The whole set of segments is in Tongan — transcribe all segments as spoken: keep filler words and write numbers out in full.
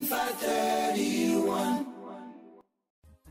Five thirty-one.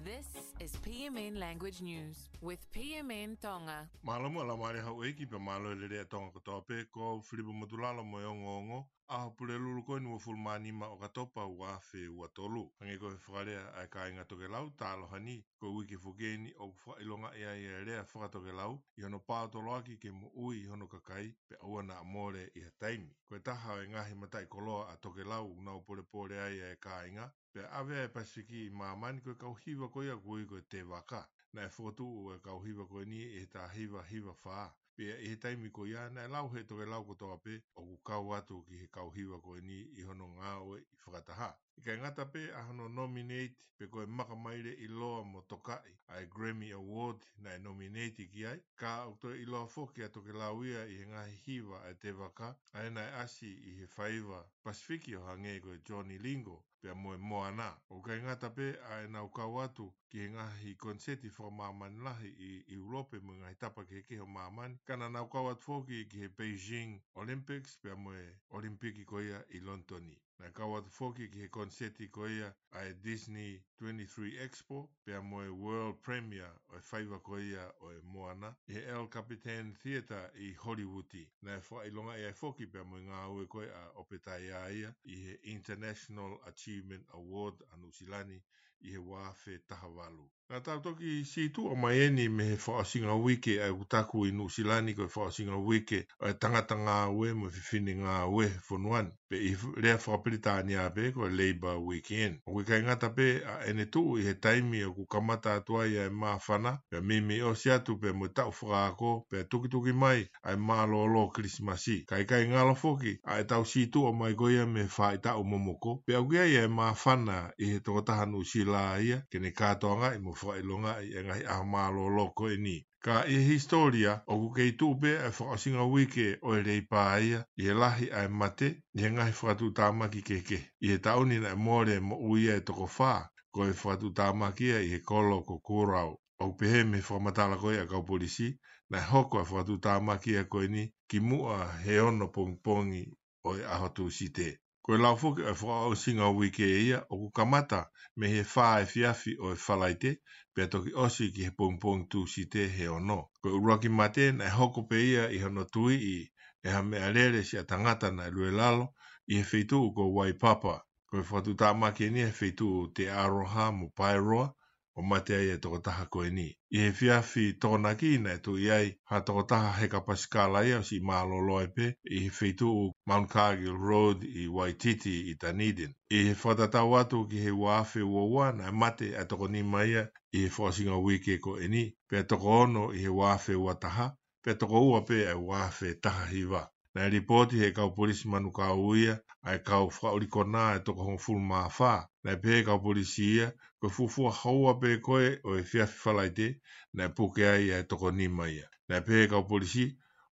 This is P M N Language News with P M N Tonga. Mālō mo e laumālie houʻeiki pea mālō e lelei ʻa Tonga kotoa pē. Ko au Filipa Motulalo mo e ongoongo ʻa e Pulelulu ko eni, uofulu mā nima ʻo ʻOkatopa, ua afe ua tolu. Hangē ko e fakalea ʻa e kāinga tokelau, tālohani, ko e uike foki eni ʻoku fakaʻilongaʻi ai e lea fakatokelau ʻi hono paotoloaki ke moʻui hono kakai pea ʻoua naʻa mole ʻi ha taimi. Ko e taha ʻo e ngaahi mataʻikoloa ʻa tokelau ʻoku nau polepole ai ʻa e kāinga, pea ʻave ʻa e Pasifiki ʻi māmani ko e kau hiva ko ia ʻoku ui ko e tēvaka. Naʻe fokotuʻu e kau hiva ko eni ʻi he taha hiva hiva fā. Pea ʻi he taimi ko ia naʻe lau ʻe he tokelau kotoa pē ʻoku kau atu ki he kau hiva ko eni ʻi hono ngāue ʻi fakataha. ʻIkai ngata pē ʻa hono nominate pe ko e makamaile ʻiloa mo tokaʻi ʻa e Grammy Award naʻe nominate ki ai, ka ʻoku toe ʻiloa foki ʻa tokelau ia ʻi he ngaahi hiva ʻa e tēvaka, ʻa ia naʻe ʻasi ʻi he faiva Pasifiki ʻo hangē ko e Johnny Lingo pea mo e Moana. ʻOku ʻikai ngata pē ʻa ʻenau kau atu ki he ngaahi koniseti fakamāmani lahi ʻi ʻIulope mo e ngaahi tapa kehekehe ʻo māmani, ka naʻa nau kau atu foki ki he Beijing Olympics pea mo e Olimpiki ko ia ʻi Lonitoni. Naʻe kau atu foki ki he koniseti ko ia ʻa e Disney twenty-three Expo pea mo e World Premiere ʻo e faiva ko ia ʻo e Moana ʻi he El Capitan Theatre ʻi Holivuti. Naʻe fakaʻilongaʻi ai foki pea mo e ngāue ko ia ʻa ʻOpetaiaia ʻi he International Achievement Award ʻa Nuʻusila ni ʻi he ua afe taha valu. Naʻa tau toki sītuʻa mai eni mei he fakaʻosinga uike ʻa ʻeku taku ʻi Nuʻusila ni ko e fakaʻosinga uike ʻo e tangata ngāue mo e fefine ngāue he fonua ni, pe ʻi he lea fakapilitānia pē ko e Labour Weekend. ʻOku ʻikai ngata pē ʻa ʻene tuʻu ʻi he taimi ʻoku kamata atu ai ʻa e māfana, pea meimei ʻosi atu pea mo e taʻu fakaako, pea tukituki mai ʻa e mālōlō Kilisimasi. Ka ʻikai ngalo foki ʻa ʻetau sītuʻa mai ko ia mei he faʻahitaʻu momoko, pea ʻoku ʻi ai ʻa e māfana ʻi he tokotaha Nuʻusila ia ke ne kātoangaʻi mo fakaʻilongaʻi e ngaahi ʻaho mālōlō ko eni. Ka ʻi he hisitōlia, ʻoku kei tuʻu pē ʻa e fakaʻosinga uike ʻo e Leipa ia ʻi he lahi ʻa e mate ʻi he ngaahi fakatuʻutāmaki kehekehe. ʻI he taʻu ni naʻe mole moʻui ʻa e toko fā, ko e fakatuʻutāmaki ia ʻi he kolo ko Koroua. ʻOku pehē mei he fakamatala ko ia ʻa e kau polisi, naʻe hoko ʻa e fakatuʻutāmaki ia ko eni kimuʻa he ono pongipongi ʻo e ʻaho Tūsite. Ko e lau foki ʻa e fakaʻosinga uike ia, ʻoku kamata mei he fā efiafi ʻo e Falaite, pea toki ʻosi ki he pongipongi Tūsite he ono. Ko e ʻuluaki mate naʻe hoko pē ia ʻi hono tuiʻi ʻe ha meʻalele siʻa tangata naʻe luelalo ʻi he feituʻu ko Waipapa. Ko e fakatuʻutāmaki eni he feituʻu Te Aroha mo Paeroa, ʻo mate ai e tokotaha ko eni. ʻI he efiafi Tokonaki naʻe tuʻi ai ha tokotaha heka pasikala ia ʻo siʻi mālōlō ai pē ʻi he feituʻu Mount Cargill Road ʻi Waititi ʻi Dunedin. ʻI he fakatatau atu ki he ua afe ua ua naʻe mate ʻa e toko nima ia ʻi he fakaʻosinga uike ko eni, pea toko ono ʻi he ua afe ua taha, pea toko ua pē ʻa e ua afe taha hiva. Naʻe lipooti ʻe he kau polisi Manukau ia ʻa e kau fakaʻuli konā ʻe toko hongofulu mā fā. Naʻe pehē ʻe he kau polisi ia, ko e fuofua houa pē ko ē ʻo e efiafi Falaite, naʻe puke ai ʻa e toko nima ia. Naʻe pehē ʻe he kau polisi,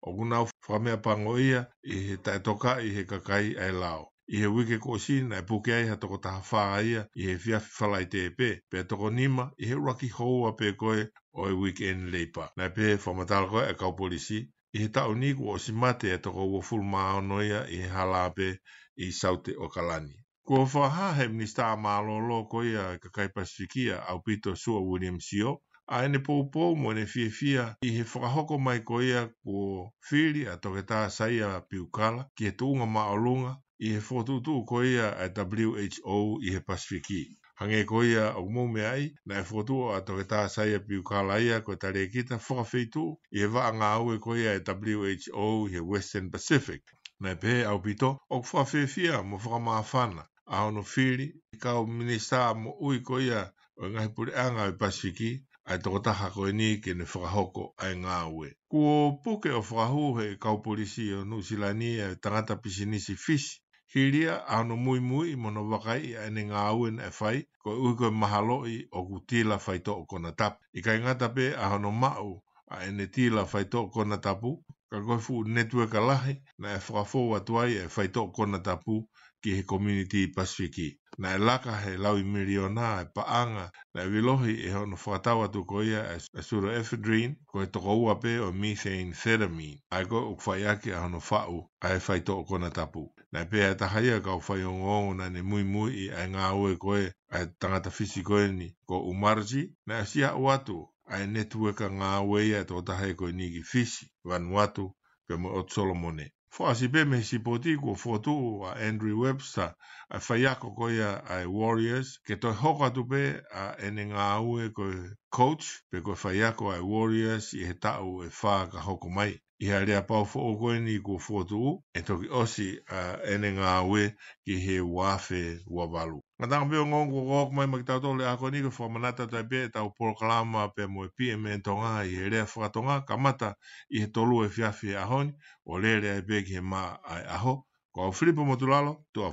ʻoku nau fakameʻapangoʻia ʻi he taʻetokaʻi ʻe he kakai ʻa e lao. ʻI he uike kuo ʻosi naʻe puke ai ha toko taha fā ia ʻi he efiafi Falaite pē, pea toko nima ʻi he ʻuluaki houa pē ko ē ʻo e weekend Leipa. Naʻe pehē ʻe he fakamatala ko ē ʻa e kau polisi, ʻi he taʻu ni kuo ʻosi mate ʻa e toko uofulu mā ono ia ʻi he hala pē ʻi Saute ʻAokalani. Kuo fakahā ʻe he Minisitā Mālōlō ko ia ʻo e kakai Pasifiki ʻa ʻAupito Sua William Sio ʻa ʻene poupou mo ʻene fiefia ʻi he fakahoko mai ko ia kuo fili ʻa Toketā Saia Piukala ki he tuʻunga māʻolunga ʻi he fokotuʻutuʻu ko ia ʻa e W H O ʻi he Pasifiki. Hangē ko ia ʻoku mou meaʻi, naʻe fokotuʻu ʻa Toketā Saia Piukala ia ko e talēkita fakafeituʻu ʻi he vaʻa ngāue ko ia ʻa e W H O ʻi he Western Pacific. Naʻe pehē ʻe ʻAupito, ʻoku fakafiefia mo fakamāfana ʻa hono fili ʻe he kau minisitā moʻui ko ia ʻo e ngaahi puleʻanga ʻo e Pasifiki ʻa e tokotaha ko eni ke ne fakahoko ʻa e ngāue. Kuo puke ʻo fakahū ʻe he kau polisi ʻo Nuʻusila ni ʻa e tangata pisinisi Fisi, hili ia ʻa hono muimuiʻi mo hono vakaiʻi ʻa ʻene ngāue naʻe fai, koeʻuhi ko e mahaloʻi ʻoku tila faitoʻo konatapu. ʻIkai ngata pē ʻa hono maʻu ʻa ʻene tila faitoʻo konatapu, ka ko e fuʻu netiueka lahi naʻe fakafou atu ai ʻa e faitoʻo konatapu ki he community Pasifiki. Naʻe laka he laui miliona e paʻanga naʻe vilohi ʻe hono fakatau atu ko ia ʻa e pseudoephedrine, ko e tokoua pē ʻo e methamphetamine, ʻa ia ko ē ʻoku fai ʻaki ʻa hono faʻu ʻa e faitoʻo konatapu. Naʻe pehē ʻe he taha ia ʻo e kau faiongoongo naʻa ne muimuiʻi ʻa e ngāue ko ē ʻa e tangata Fisi ko eni ko Umarji, naʻe ʻosi aʻu atu ʻa e netiueka ngāue ia ʻa e tokotaha ko eni ki Fisi, Vanuatu, pea mo e ʻOtu Solomone. Fakaʻosi pē mei he sipoti, kuo fokotuʻu ʻa Andrew Webster, ʻa e faiako ko ia ʻa e Warriors, ke toe hoko atu pē ʻa ʻene ngāue ko e coach, pe ko e faiako ʻa e Warriors ʻi he taʻu ʻe fā ka hoko mai. ʻI he aleapau foʻou ko eni kuo fokotuʻu, ʻe toki ʻosi ʻa ʻene ngāue ki he ua afe ua valu. Ngataʻanga pē ongoongo kuo hoko mai maʻa kitautolu he ʻaho ko eni, ko e fakamanatu atu ai pē ʻetau polokalama pea mo e P M N Tonga ʻi he lea fakatonga, kamata ʻi he tolu efiafi he ʻaho ni, ʻo lele ai pē ki he maʻa ʻa e ʻaho. Ko au Filipo Motulalo, tuʻa